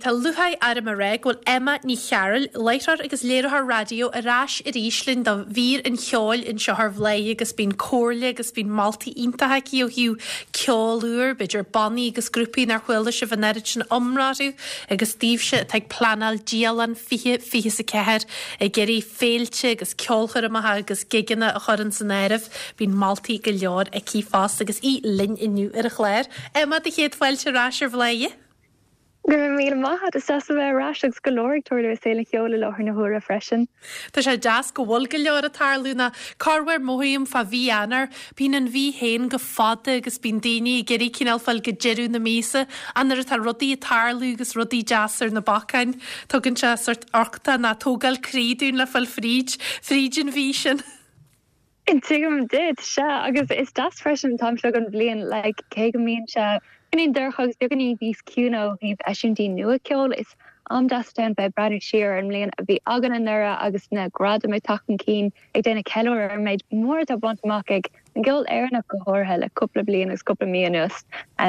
tá lúcháir orm a rá go bhfuil Emma Ní Chearúil, láithreoir agus léiritheoir raidió ar ais arís linn do mhír an cheoil anseo ar Bhladhaire agus bíonn comhairle agus bíonn moltaí iontacha aici ó thaobh ceol úr, b'fhéidir bannaí agus grúpaí nár chuala sibh an oiread sin iomrá orthu agus daoibhse atá ag pleanáil dialann 2024 ag iarraidh féilte agus ceolchoirmeacha agus gigeanna a chur ins an áireamh. Bíonn moltaí go leor aici fosta agus í linn inniu ar an chlár. Emma, do chéad fáilte ar ais ar Bhladhaire. Go raibh míle maith agat, is deas a bheith ar ais agus go leor ag tarlú i saol an cheoil i láthair na huaire freisin. Tá sé deas go bhfuil go leor ag tarlú nó corruair mothaím fá mhí Eanáir, bíonn an mhí féin go fada agus bíonn daoine ag iarraidh cineál fáil go deireadh na míosa ach nuair atá rudaí ag tarlú agus rudaí deasa ar na bacáin, tugann sé sort uchtach nó tógáil croí dúinn le fáil fríd, fríd an mhí sin. Tuigim duit, sea, agus is deas freisin an t-am seo den bhliain, like, cé go mbíonn sé beagáinín dorcha agus beagáinín níos ciúine ó thaobh eisiúintí nua ceoil, is am deas atá ann bheith ag breathnú siar ar an mbliain a bhí againn anuraidh agus na gradaim ag teacht chun cinn, ag déanamh ceiliúradh ar an méid mór atá bainte amach ag an gceol Éireannach go háirithe le cúpla bliain agus cúpla mí anuas.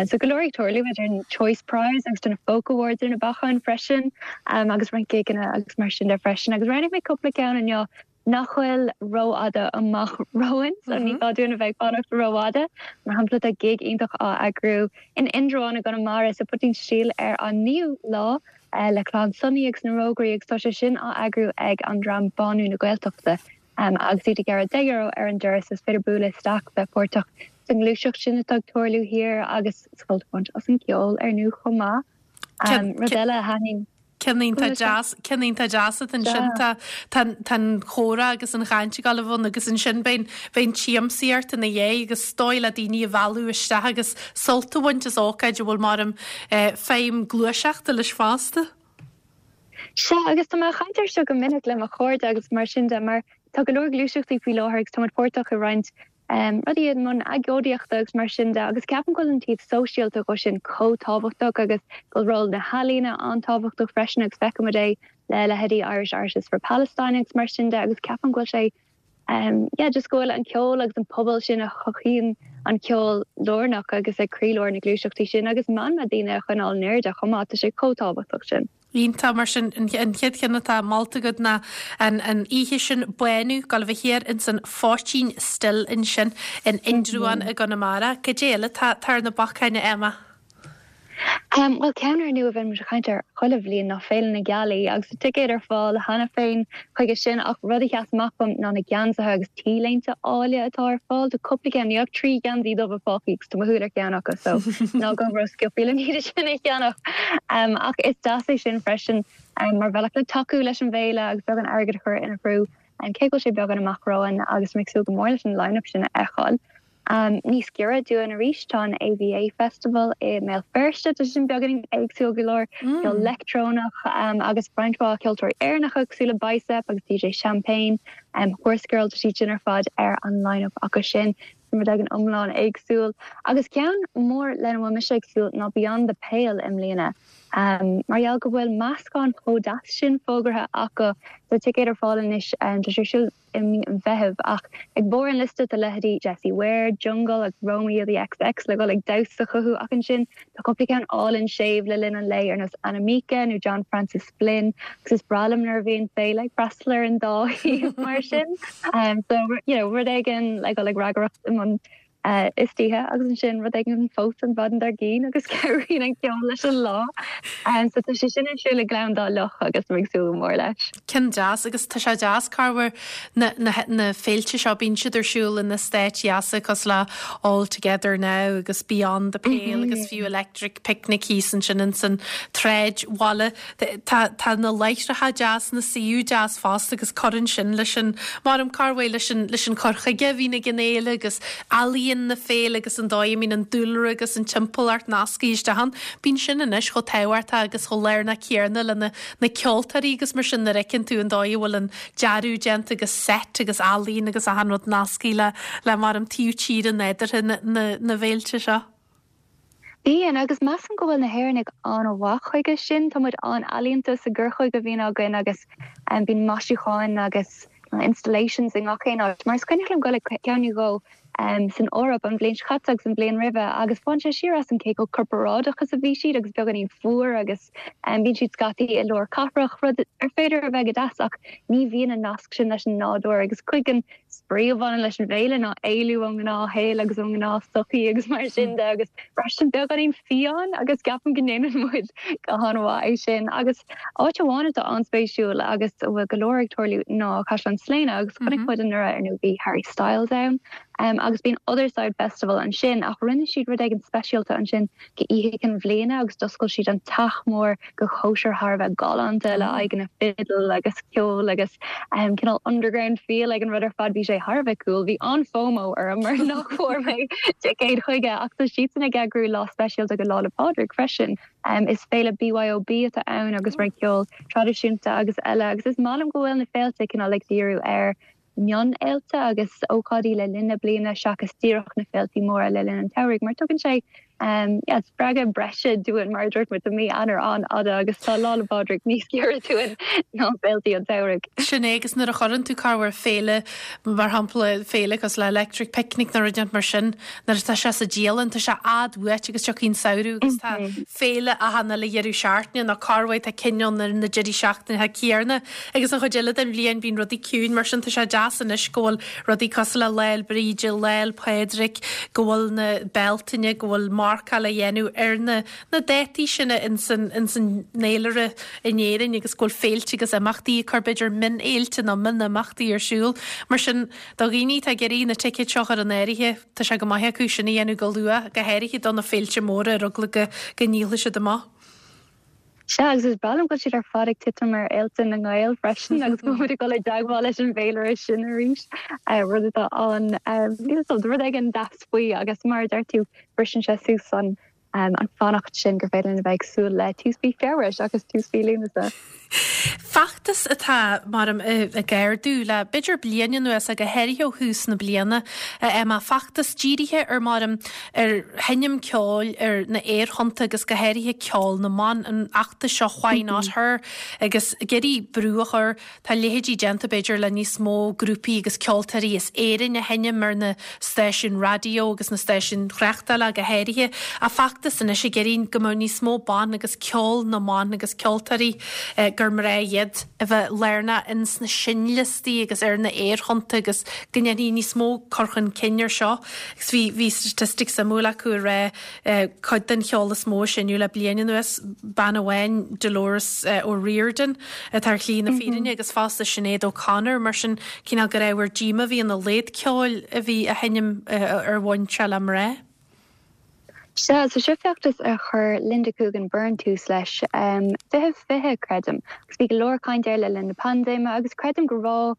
So go leor ag tarlú idir an Choice Prize agus na Folk Awards ar na bacáin freisin agus roinnt gigeanna agus mar sin de freisin agus roghnaigh mé cúpla ceann inniu nach bhfuil rófhada amach romhainn, so ní gá dúinn a bheith ag fanacht rófhada. Mar shampla, tá gig iontach á eagrú in Indreabhán i gConamara sa Poitín Stil ar an 9ú lá le Clann Sonaí agus na Rógairí agus tá sé sin á eagrú ag an dream Bánú na Gaeltachta agus iad ag gearradh €10 ar an doras. Is féidir bualadh isteach, bheith páirteach sa ngluaiseacht sin atá ag tarlú thiar agus sult a bhaint as an gceol ar ndóigh chomh maith. Rud eile a thaitníonn. Ceann iontach deas, ceann iontach deas atá ansin. Tá, tá, tá an chomhrá agus an chaint ag dul a bheith ann agus ansin beidh, beidh an tsiamsaíocht ina dhiaidh agus is dóigh le daoine a mhealladh isteach agus sult a bhaint as ócáid a bhfuil mar feidhm gluaiseachta leis fosta. Sea, agus tá mé ag caint air seo go minic le mo chairde agus mar sin de, mar tá go leor gluaiseachtaí faoi láthair agus tá muid páirteach i roinnt rudaí i mbun agóidíochta agus mar sin de agus ceapaim go bhfuil an taobh sóisialta dhó sin chomh tábhachtach agus go bhfuil ról na healaíona an-tábhachtach freisin agus feicimid é le leithéidí Irish Artists for Palestine agus mar sin de agus ceapaim go bhfuil sé yeah just go bhfuil an ceol agus an pobal sin a chothaíonn an ceol lárnach agus ag croílár na gluaiseachtaí sin agus meanma daoine a choinneáil in airde chomh maith, tá sé chomh tábhachtach sin. Iontach, mar sin, an chéad cheann atá molta agat ná an oíche sin, Bánú, ag dul a bheith thiar ins an Phoitín Stil ansin in Indreabhán i gConamara. Cad é eile atá ar na bacáin, a Emma? Bhuel, ceann ar ndóigh a bhíonn muid ag caint air chuile bhliain ná Féile na Gealaí agus tá ticéid ar fáil cheana féin chuige sin ach rud a sheas amach dom ná na geansaithe agus T-léinte áille atá ar fáil. Tá cúpla ceann, níl ach 3 gheansaí dubha fágtha agus tá mo shúil ar cheann acu so ná gabh ró-sciobtha le iad sin a cheannach. Ach is deas é sin freisin mar bhealach le tacú leis an bhféile agus beagán airgid a chur ina threo cé go bhfuil sé beagán amach romhainn agus tá mé ag súil go mór leis an line-up sin a fheiceáil. Níos giorra dúinn arís tá an AVA Festival i mBéal Feirste, tá sé sin beagáinín éagsúil go leor, ceol leictreonach agus roinnt mhaith ceoltóirí Éireannacha cosúil le Bicep agus DJ Champagne, Horsegirl, tá siad sin ar fad ar an line-up acu sin. Sin rud éigin iomlán éagsúil. Agus ceann mór lena bhfuil mise ag súil ná Beyond the Pale i mbliana. Mar gheall go bhfuil meascán chomh deas sin fógartha acu, tá ticéid ar fáil anois, tá sé ar siúl i mí an Mheithimh, ach ag barr an liosta tá leithéidí Jessie Ware, Jungle agus Romeo the XX le dhul ag damhsa chucu ach ansin tá cúpla ceann álainn séimh le linn an lae ar nós Anamika nó John Francis Flynn agus is breá liom nuair a bhíonn féile ag freastal ar an dá thaobh mar sin. So you know rud éigin le dhul ag ragaireacht i mbun istoíche agus ansin rud éigin fós an mhaidin dár gcionn agus cabhraíonn an ceol leis an lá. So tá sé sin ar siúl i nGleann Dá Loch agus tá mé ag súil go mór leis. Ceann deas agus tá sé deas corruair na, na, na féilte seo bíonn siad ar siúl in eastáit dheasa cosúil le All Together Now agus Beyond the Pale agus fiú Electric Picnic thíos ansin ins an tsráidbhaile. Tá, tá na láithreacha deas, na suíomh deas fosta agus cuireann sin leis an, maram corruair leis an, leis an cur chuige a bhíonn ag an fhéile agus ealaíon na féile agus an dóigh a mbíonn an dúlra agus an timpeallacht nasctha isteach ann. Bíonn sin anois chomh tábhachtach agus chomh lárnach céanna le na, na ceoltóirí agus mar sin nuair a fheiceann tú an dóigh a bhfuil an dearadh déanta agus set agus ealaíon agus achan rud nasctha le, le maram taobh tíre nádúrtha na, na, na bhféilte seo. Bíonn, agus measaim go bhfuil na hÉireannaigh an-mhaith chuige sin. Tá muid an-ealaíonta sa gcur chuige a bhíonn againn agus bíonn maisiúcháin agus installations i ngach aon áit. Mar is cuimhneach liom dul ag ceann nó dhó. San Eoraip an bhliain seo caite agus an bhliain roimhe agus bhain sé siar asam cé chomh corparáideach is a bhí siad agus beagáinín fuar agus bíonn siad scaití i lár cathrach, rud ar féidir a bheith go deas ach ní bhíonn an nasc sin leis an nádúr agus cuid den spraoi a bhaineann leis an bhféile ná éalú ón ngnáthshaol agus ón ngnáthsochaí agus mar sin de agus freisin beagáinín fiáin agus ceapaim go ndéanann muid go han-mhaith é sin agus áit amháin atá an-spéisiúil agus a bhfuil go leor ag tarlú ná Caisleán Sléine agus chonaic muid anuraidh ar ndóigh bhí Harry Styles ann agus bíonn Otherside Festival ansin ach rinne siad rud éigin speisialta ansin go Oíche Chinn Bhliana agus d'oscail siad an teach mór go chóisir thar a bheith galánta le aghaidheanna fidil agus ceol agus cineál underground feel ag an rud ar fad bhí sé thar a bheith cool bhí an-FOMO orm mar nach bhfuair mé ticéad chuige ach tá siadsan ag eagrú lá speisialta go Lá 'le Pádraig freisin. Is féile BYOB atá ann agus roinnt ceol traidisiúnta agus eile agus is maith liom go bhfuil na féilte cineál ag díriú ar mhionfhéilte agus ócáidí le linn na bliana seachas díreach na féiltí móra le linn an tsamhraidh mar tugann sé yeah, spreagadh breise dúinn mar a dúirt muid tá mí Eanáir an-fhada agus tá Lá 'le Pádraig níos giorra dúinn ná féiltí an tsamhraidh. Sin é agus nuair a chuireann tú corruair féile mar shampla féile cosúil le Electric Picnic nó rud mar sin Nuair atá sé sa dialann, tá sé i bhfad uait agus tiocfaidh an samhradh agus tá féile achan uile dheireadh seachtaine nó corruair tá cinn ann ar na deirí seachtaine céanna agus an chuid eile den bhliain bíonn rudaí ciúin mar sin tá sé deas anois go bhfuil rudaí cosúil le Lá 'le Bríde, Lá 'le Pádraig, go bhfuil na Bealtaine, go bhfuil marcáil á dhéanamh ar na na dátaí sin ins an ins an fhéilire in Éirinn agus go bhfuil féilte agus imeachtaí ag cur b'fhéidir mionfhéilte nó mionimeachtaí ar siúl. Mar sin Do dhaoine atá ag iarraidh na ticéid seo a chur in áirithe, tá sé go maith acu sin a dhéanamh go luath, go háirithe do na féilte móra ar eagla go go ndíolfaidh siad amach. Sea, agus is breá liom go bhfuil siad ar fad ag titim ar fhéilte na nGael freisin agus go bhfuil muid ag dul i dteagmháil leis an bhféilire sin arís, rud atá an, níl 'fhios a'm, rud éigin deas faoi agus mar a deir tú, briseann sé suas an an fanacht sin gur féidir linn a bheith ag súil le tús mhí Feabhra seachas tús mhí Lúnasa. Feachtas atá, maram, ag ardú le b'fhéidir bliain anuas, go háirithe ó thús na bliana, Emma, feachtas dírithe ar, maram, ar sheinm ceoil ar na aerthonnta agus go háirithe ceol na mban, an feachtas seo Why Not Her agus ag iarraidh brú a chur Tá a leithéidí déanta, b'fhéidir, le níos mó grúpaí agus ceoltóirí as Éirinn a sheinm ar na stáisiúin raidió agus na stáisiúin thráchtála go háirithe. Ach feachtas anois ag iarraidh go mbeadh níos mó ban agus ceol na mban agus ceoltóirí gur mná iad a bheith lárnach ins na seinnliostaí agus ar na aerthonnta agus go ndéanfaí níos mó cur chun cinn ar seo. Agus bhí bhí statistic suimiúil acu ag rá Cuid den cheol is mó a seinneadh le bliain anuas, bean amháin, Dolores O'Riordan, atá ar shlí na fírinne agus fosta Sinéad O'Connor, mar sin cineál gur ábhar díomá a bhí ina laghad ceoil a bhí á sheinm ar bhonn seo le mná. Sea, so seo feachtas a chuir Linda Coogan Byrne tús leis, 2020, creidim, agus bhí go leor caint air le linn na paindéime agus creidim go raibh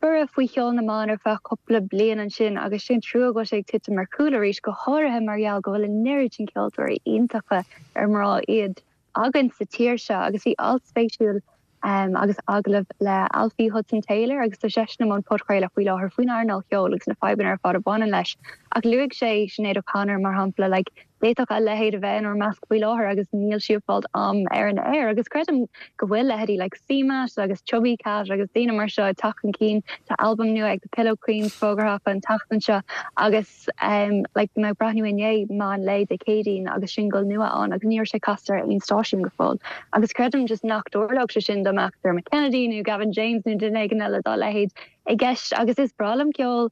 Borradh faoi cheol na mban ar feadh cúpla bliain ansin agus sé an trua go bhfuil sé ag titim ar chúl arís, go háirithe mar gheall go bhfuil an oiread sin ceoltóirí iontacha ar mná iad againn sa tír seo. Agus bhí alt spéisiúil agus agallamh le Alfie Hudson Taylor agus tá seisean i mbun podchraoladh faoi láthair faoin earnáil cheoil agus na fadhbanna ar fad a bhaineann leis. Ach luaigh sé Sinéad O'Connor mar shampla, like, D'fhéadfadh a leithéid a bheith inár measc faoi láthair agus níl sí ag fáilt am ar an aer agus creidim go bhfuil leithéidí like CMAT agus Chubby Cat agus daoine mar seo ag teacht chun cinn. Tá albam nua ag The Pillow Queens fógartha acu an tseachtain seo agus um like bhí mé ag breathnú inné meán lae Dé Céadaoin agus singil nua ann agus ní raibh sé casta ar aon stáisiún go fóill agus creidim just nach dtarlódh sé sin dá mbeadh Dermot Kennedy nó Gavin James nó duine éigin eile dá leithéid i gceist agus is breá liom ceol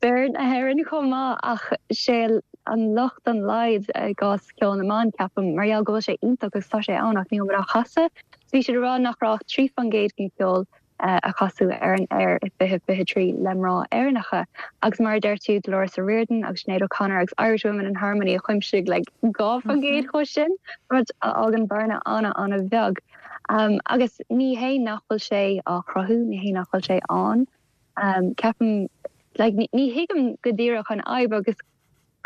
fir na hÉireann chomh maith ach sé an locht an laghad i gcás ceol na mban, ceapaim, mar gheall go bhfuil sé iontach agus tá sé ann ach níl muid á chasadh. So bhí siad ag rá nach raibh ach 3% den cheol a casadh ar an aer i 2023 le mná Éireannacha agus mar a deir tú Dolores O'Riordan agus Sinéad O'Connor agus Irish Women in Harmony a chuimsigh like 2% dhe sin, rud a fhágann bearna an-an-bheag. Agus ní hé nach bhfuil sé á chruthú, ní hé nach bhfuil sé ann. Ceapaim, like, ní thuigim go díreach an fhadhb agus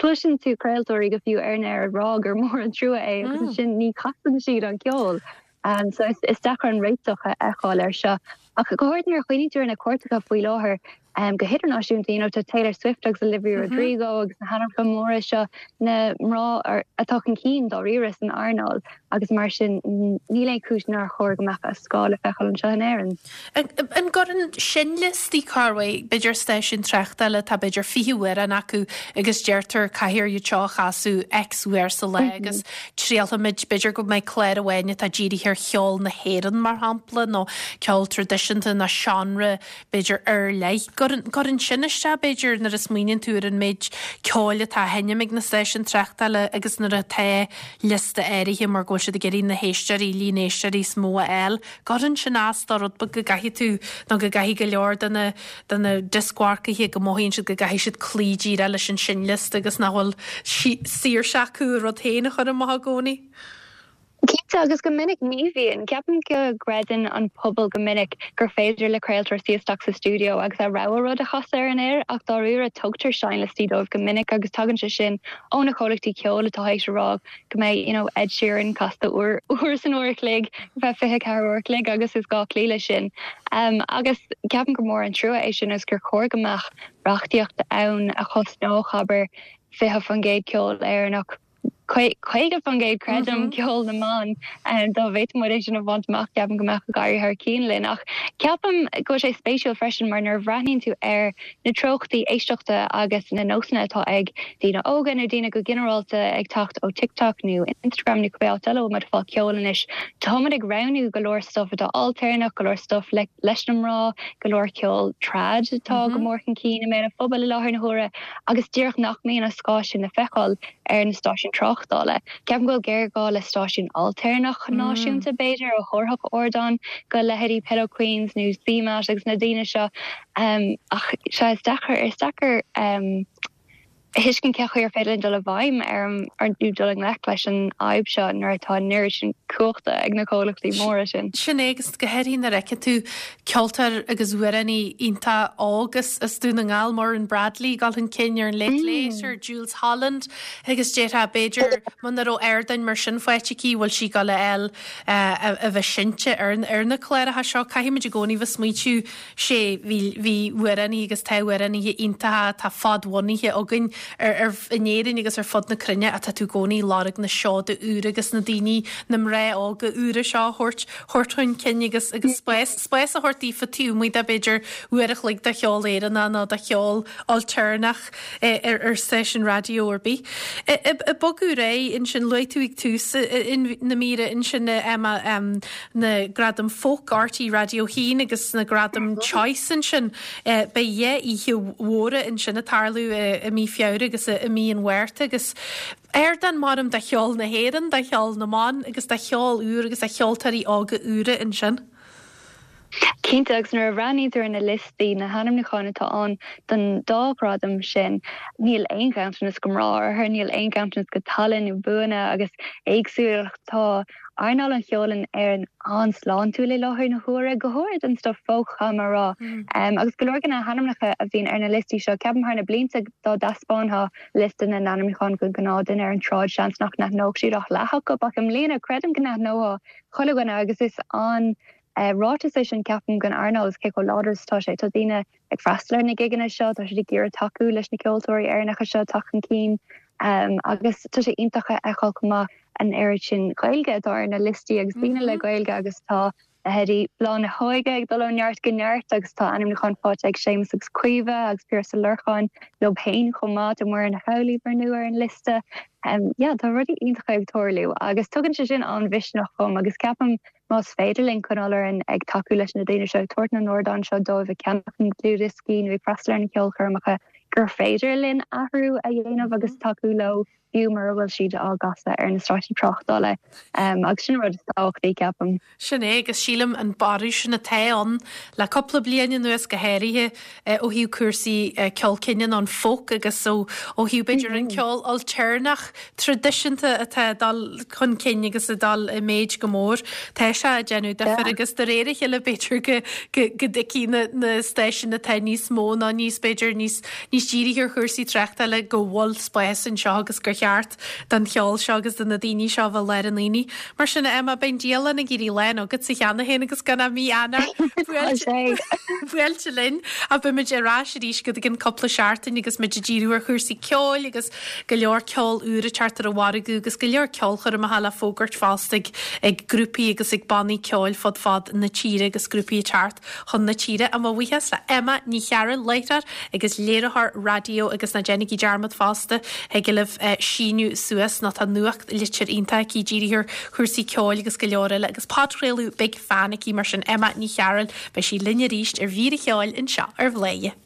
cloiseann tú craoltóirí go fiú ar an aer ag rá gur mór an trua é agus ansin ní chasann siad an ceol. So is deacair an réiteach a fheiceáil air seo. Ach go háirithe nuair a chuimhníonn tú ar na cairteacha faoi láthair, Go hidirnáisiúnta, you know, tá Taylor Swift agus Olivia Rodrigo agus na hainmneacha móra seo, na mná atá chun cinn dáiríre san earnáil agus mar sin níl aon chúis nár chóir go mbeadh a scáth le feiceáil anseo in Éirinn. An gcuireann sin liostaí corruair, b'fhéidir stáisiún tráchtála atá b'fhéidir 20 amhrán acu agus deirtear caithfear iad seo a chasadh X uair sa lá agus triailfimid, b'fhéidir go mbeidh clár amháin atá dírithe ar cheol na hÉireann mar shampla nó ceol traidisiúnta nó seánra b'fhéidir, ar leith. Gcuireann sin isteach, b'fhéidir, nuair a smaoiníonn tú ar an méid ceoil atá á sheinm ag na stáisiúin tráchtála agus nuair atá liosta áirithe mar go bhfuil siad ag iarraidh na héisteoirí, líon éisteoirí is mó a fháil. Gcuireann sin as do rud beag go gcaithfidh tú nó go gcaithfidh go leor de na, de na dioscmharcaithe go mothaíonn siad go gcaithfidh siad cloí díreach leis an seinnliosta agus nach bhfuil saoirse acu a rud féin a chur amach i gcónaí. Cinnte, agus go minic ní bhíonn. Ceapaim go gcreideann an pobal go minic gur féidir le craoltóir suí isteach sa stiúideo agus a rogha rud a chasadh ar an aer ach dáiríre tugtar seinnliostaí dóibh go minic agus tagann sé sin ó na comhlachtaí ceoil atá théis a rá go mbeidh you know Ed Sheeran casta uair uair san uair a chloig ar feadh 24 uair a chloig agus is gá cloí leis sin. Agus ceapaim gur mór an trua é sin agus gur chóir go mbeadh reachtaíocht ann a chosnódh abair 20% ceol Éireannach. 50% creidim, ceol na mban. Dá bhféadfadh muid é sin a bhaint amach, ceapaim go mbeadh ag éirí thar cionn linn. Ach ceapaim go bhfuil sé spéisiúil freisin mar nuair a bhreathnaíonn tú ar na treochtaí éisteachta agus na nósanna atá ag daoine óga nó daoine go ginearálta ag teacht ó TikTok nó Instagram nó cibé áit eile a bhfuil muid ag fáil ceoil anois, tá muid ag roghnú go leor stuif atá ailtéarnach, go leor stuif leis na mná, go leor ceol trad atá go mór chun cinn i mbéal an phobail i láthair na huaire. agus díreach nach mbíonn an scáth sin le feiceáil ar na stáisiúin tráchtála. Ceapaim go bhfuil géarghá le stáisiún ailtéarnach náisiúnta, b'fhéidir, a thabharfadh ardán go leithéidí Pillow Queens nó CMAT agus na daoine seo. Ach sea, is deacair, is deacair a thuiscint cén chaoi ar féidir linn dul i bhfeidhm ar an, nó dul i ngleic leis an fhadhb seo nuair atá an oiread sin cumhachta ag na comhlachtaí móra sin. Sin é, agus go háirithe nuair a fheiceann tú Ceoltóir agus amhránaí iontach óg as Dún na nGall, Muireann Bradley, ag dul chun cinn ar an Late Late ar Jools Holland agus déarfá b'fhéidir muna raibh ardáin mar sin faighte aici bhfuil sí ag dul a fháil a bheith seinnte ar na cláracha seo. Caithfimid i gcónaí bheith smaointiú sé bhí bhí amhránaithe agus tá amhránaithe iontacha atá fadbhunaithe againn ar in Éirinn agus ar fud na cruinne ach tá tú i gcónaí ag lorg na seoda úra agus na daoine, na mná óga úra seo a thabhairt thabhairt chun cinn agus agus spás spás a thabhairt daofa taobh amuigh de b'fhéidir uair a chloig de cheol Éireannach nó de cheol ailtéarnach ar ar stáisiún raidió ar bith. Ag bogadh ar aghaidh ansin luaigh tú ag tús na míre ansin Emma na Gradaim Folk RTÉ Raidió 1 agus na Gradaim Choice ansin. Beidh dhá oíche mhóra ansin ag tarlú i mí Feabhra agus i mí an Mhárta agus ardán maram do cheol na hÉireann, do cheol na mban agus do cheol úr agus do cheoltóirí óga úra ansin. Cinnte, agus nuair a bhreathnaíonn tú ar na liostaí, na hainmniúcháin atá ann don dá ghradam sin, níl aon ghanntanas go mná orthu, níl aon ghanntanas go tallann nó buanna agus éagsúlacht. Tá earnáil an cheoil in Éirinn an-sláintiúil i láthair na huaire, go háirid an stuif folk, caithfidh mé a rá. Agus go leor de na hainmneacha a bhíonn ar na liostaí seo, ceapaim thar na blianta dá dtaispeánfá liosta na n-ainmniúchán don ghnáthduine ar an tsráid, seans nach n-aithneodh siad ach leath acu, ach i mbliana creidim go n-aithneodh chuile dhuine agus is an-ráiteas é sin ceapaim don earnáil agus cé chomh láidir is atá sé. Tá daoine ag freastal ar na gigeanna seo, tá siad ag iarraidh tacú leis na ceoltóirí Éireannacha seo teacht chun cinn agus tá sé iontach a fheiceáil chomh maith an oiread sin Gaeilge atá ar na liostaí agus daoine le Gaeilge agus tá leithéidí Bláth na hÓige ag dul ó neart go neart agus tá ainmniúchán faighte ag Séamus agus Caoimhe agus Piaras Ó Lorcáin leo féin chomh maith, tá Muireann Ní Amhlaoibh ar ndóigh ar an liosta. Yeah, tá rudaí iontacha ag tarlú agus tugann sé sin an-mhisneach dhom agus ceapaim Más féidir linn coinneáil orainn ag tacú leis na daoine seo, ag tabhairt na n-ardán seo dóibh, ag ceannach na ndlúthdhioscaí nó ag freastal ar na ceolchoirmeacha, gur féidir linn athrú a dhéanamh agus tacú leo fiú mura bhfuil siad á gcasadh ar na stáisiúin tráchtála. Agus sin an rud is tábhachtaí, ceapaim. Sin é, agus sílim an borradh sin atá ann le cúpla bliain anuas go háirithe ó thaobh cúrsaí ceol cine nó an folk agus ó thaobh b'fhéidir an ceol ailtéarnach traidisiúnta atá ag dul chun cinn agus ag dul i méid go mór. Tá sé ag déanamh difir agus de réir a chéile b'fhéidir go go dtuigfidh na na stáisiúin atá níos mó nó níos b'fhéidir níos níos dírithe ar chúrsaí tráchtála go bhfuil spás anseo agus gur. cheart don cheol seo agus do na daoine seo a bheith i lár an aonaigh. Mar sin, a Emma, beidh an dialann ag éirí lán agatsa cheana féin agus gan ach mí Eanáir buailte linn. Ach beimid ar ais arís go gceann cúpla seachtain agus muid ag díriú ar chúrsaí ceoil agus go leor ceol úr ag teacht ar an mhargadh agus go leor ceolchoirmeacha le fógairt fosta ag ag grúpaí agus ag bannaí ceoil fud fad na tíre agus grúpaí ag teacht chun na tíre. Mo bhuíochas le Emma Ní Chearúil, láithreoir agus léiritheoir raidió agus ná déanaigí dearmad fosta, thig libh síniú suas nó tá nuachtlitir iontach aici dírithe ar chúrsaí ceoil agus go leor eile agus podchraoladh Big Fan aici mar sin Emma Ní Chearúil, beidh sí linn arís ar Mhír an Cheoil anseo ar Bhladhaire.